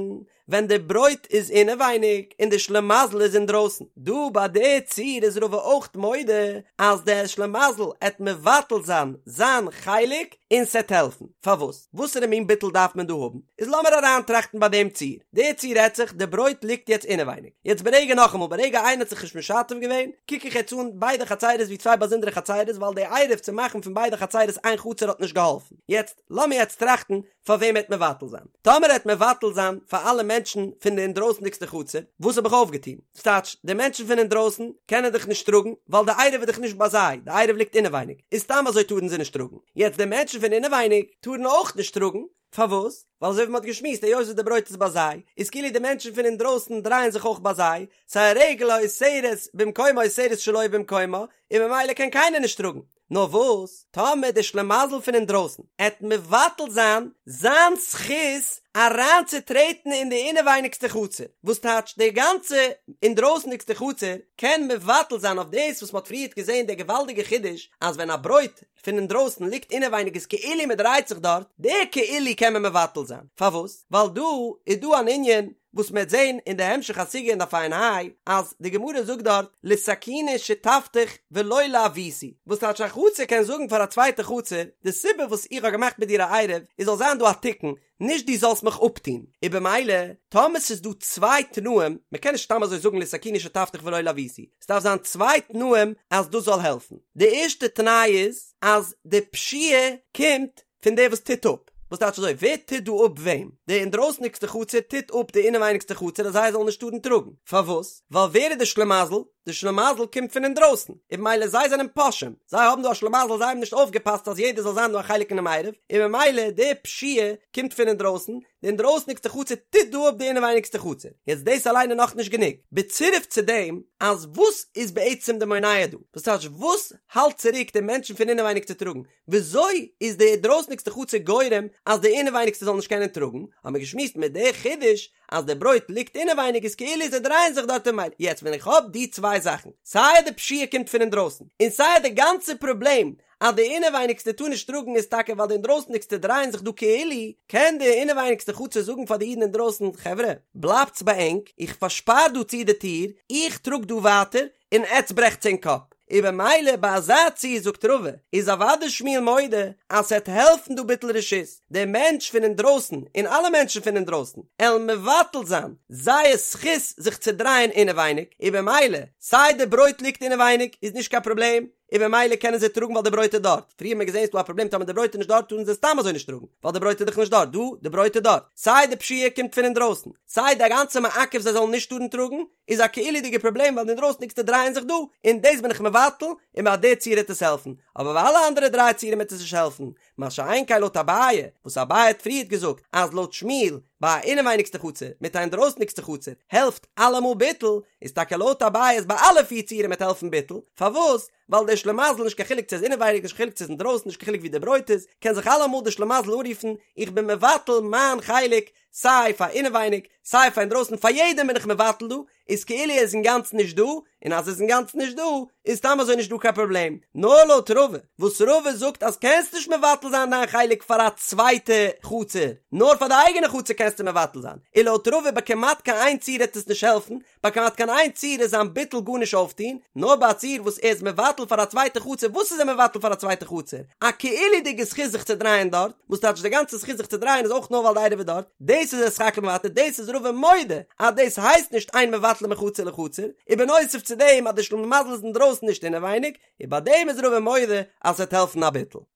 ווען די ברויט איז אינעווייניג און די שלימזל איז אינדרויסן. דא ביי די ציור איז רבא אויך מודה אז דער שלימזל עט מבטל זיין זיין חלק און ס'עט העלפן. פארוואס? וואסערע מין ביטול דארף מען דא האבן? איז לאמיר אריינטראכטן ביי דעם ציור. די ציור רעדט זיך, די ברויט ליגט יעצט אינעווייניג. יעצט ברגע נאכאמאל, ברגע איינער האט זיך נישט משתף געווען, קוק איך יעצט אן ביידע חצירות ווי צוויי באזונדערע חצירות ווייל די עירוב צו מאכן פון ביידע חצירות איין חצר האט נישט געהאלפן. יעצט לאמיר יעצט טראכטן פאר וועם עט מבטל זיין? טאמער עט מבטל זיין פאר אלע מענטשן פון די אינדרויסנדיגסטע חצר, וואס האב איך אויפגעטון? ס'טייטש, די מענטשן פון אינדרויסן קענען דאך נישט טראגן, ווייל די עירוב איז דאך נישט ביי זיי, די עירוב ליגט אינעווייניג, איז סתם אזוי טארן זיי נישט טראגן. יעצט די מענטשן פון אינעווייניג טארן אויך נישט טראגן, פארוואס? ווייל אזוי ווי מ'האט געשמועסט היות וואס די ברויט איז ביי זיי, איז כאילו די מענטשן פון אינדרויסן דרייען זיך אויך ביי זיי, ס'איז א רגל האוסרת במקומה אוסרת שלא במקומה, און ממילא קען קיינער נישט טראגן. נאר וואס, טאמער דער שלימזל פון אינדרויסן עט מבטל זיין זיין זכות אריינצוטרעטן אין די אינעווייניגסטע חצר, וואס טייטש די גאנצע אינדרויסנדיגסטע חצר קען מבטל זיין אויף דאס וואס מ'האט פריערט געזען דער געוואלדיגע חידוש אז ווען א ברויט פון אינדרויסן ליגט אינעווייניג איז כאילו מ'דרייט זיך דארט, די כאילו קען מען מבטל זיין, פארוואס? ווייל דא איז דא אן ענין וואס מ'וועט זען אין די המשך הסוגיא אין דף ע"ה, אז די גמרא זאגט דארט לתקוני שותפתיך ולא לעוותי, וואס טייטש א חצר קען זאגן פאר א צווייטע חצר, די סיבה וואס איך האב געמאכט מיט דיר א עירוב איז זאל זיין דא א תיקון, נישט דו זאלסט מיך אפטון, און במילא טאמער ס'איז דא צוויי תנאים, מ'קען נישט סתם אזוי זאגן לתקוני שותפתיך ולא לעוותי, ס'דארף זיין צוויי תנאים אז דאס זאל העלפן, די ערשטע תנאי איז אז די פשיעה קומט פון דער וואס טוט אפ. וואס טייטש אזוי? ווער טוט דא אפ וועם? די אינדרויסניגסטע חצר טוט אפ די אינעווייניגסטע חצר אז זיי זאלן נישט טארן טראגן. פארוואס? ווייל ווער איז די שלימזל? די שלימזל קומט פון אינדרויסן, און במילא זיי זענען פושעים. זיי האבן דא א שלימזל, זיי האבן נישט אויפגעפאסט אז יעדער זאל זיין דא א חלק אינעם עירוב, און במילא די פשיעה קומט פון אינדרויסן, די אינדרויסניגסטע חצר טוט דא אפ די אינעווייניגסטע חצר. יעצט דאס אליין איז נאכנישט גענוג. בצירוף צו דעם אז וואס איז בעצם די מונע דא? וואס טייטש וואס האלט צוריק די מענטשן פון אינעווייניג צו טראגן? וויאזוי איז די דרויסניגסטע חצר גורם אז די אינעווייניגסטע זאל נישט קענען טראגן? האבן מיר געשמועסט מיט די חידוש אז די ברויט ליגט אינעווייניג איז כאילו זיי דרייען זיך דארט אין מילא. יעצט ווען איך האב די צוויי זאכן, סיי די פשיעה קומט פון אינדרויסן, און סיי די גאנצע פראבלעם אז די אינעווייניגסטע טאר נישט טראגן איז טאקע ווייל די אינדרויסניגסטע דרייען זיך דא כאילו, קען די אינעווייניגסטע חצר זאגן פאר די אידן אינדרויסן, חברה, בלייבטס ביי ענק, איך פארשפאר דא צו די טיר, איך טראג דא ווייטער, און עטץ ברעכטס ענק קאפ. און במילא ביי אזא ציור זאגט רבא, איז אוודאי שמואל מודה אז ס'עט העלפן דא ביטול רשות, דער מענטש פון אינדרויסן און אלע מענטשן פון אינדרויסן עלן מבטל זיין זייער זכות זיך צו דרייען אינעווייניג, און במילא סיי די ברויט ליגט אינעווייניג איז נישט קיין פראבלעם, און במילא קענען זיי טראגן ווייל די ברויט איז דארט, פריער האט מען געזען ס'איז דא א פראבלעם טאמער די ברויט איז נישט דארט טארן זיי סתם אזוי נישט טראגן, ווייל די ברויט איז דאך נישט דארט, דא די ברויט איז דארט, סיי די פשיעה קומט פון אינדרויסן, סיי די גאנצע מעכב זיי זאלן נישט טארן טראגן, איז א כאילו'דיגע פראבלעם ווייל די אינדרויסניגסטע דרייען זיך דא, און דאס בין איך מבטל, און ביי די ציור העט עס העלפן. אבער ביי אלע אנדערע דריי ציורים וועט עס נישט העלפן, מה שאין כן לויט אביי, וואס אביי האט פריערט געזאגט אז לויט שמואל ביי א אינעווייניגסטע חצר מיט א אינדרויסניגסטע חצר העלפט אלעמאל ביטול, איז טאקע לויט אביי אז ביי אלע פיר ציורים וועט העלפן ביטול, פארוואס? ווייל דער שלימזל נישט קיין חילוק צו עס איז אינעווייניג נישט קיין חילוק צו עס איז אינדרויסן נישט קיין חילוק ווי די ברויט איז, קען זיך אלעמאל דער שלימזל אנרופן איך בין מבטל מיין חלק סיי פאר אינעווייניג סיי פאר אינדרויסן פאר יעדעם בין איך מבטל דא, איז כאילו ער איז אינגאנצן נישט דא, און אז ער איז אינגאנצן נישט דא, איז סתם אזוי נישט דא קיין פראבלעם. נאר לויט רבא, וואס רבא זאגט אז קענסט נישט מבטל זיין דיין חלק פאר א צווייטע חצר, נאר פאר די אייגענע חצר קענסטו מבטל זיין, און לויט רבא ביי כמעט קיין איין ציור העט עס נישט העלפן, ביי כמעט קיין איין ציור איז זיין ביטול גארנישט אויפטון, נאר ביי א ציור וואס ער איז מבטל פאר א צווייטע חצר, וואס איז ער מבטל פאר א צווייטע חצר? א כאילו'דיגע זכות זיך צו דרייען דארט, וואס טייטש די גאנצע זכות זיך צו דרייען איז אויך נאר ווייל די עירוב איז דארט, דאס איז ער סך הכל מוותר, דאס איז רבא מודה אז דאס הייסט נישט אין מבטלין מחצר לחצר, און בנוסף צו דעם אז די שלימזל איז אינדרויסן נישט אינעווייניג, און ביי דעם איז רבא מודה אז ס'וועט העלפן א ביטול.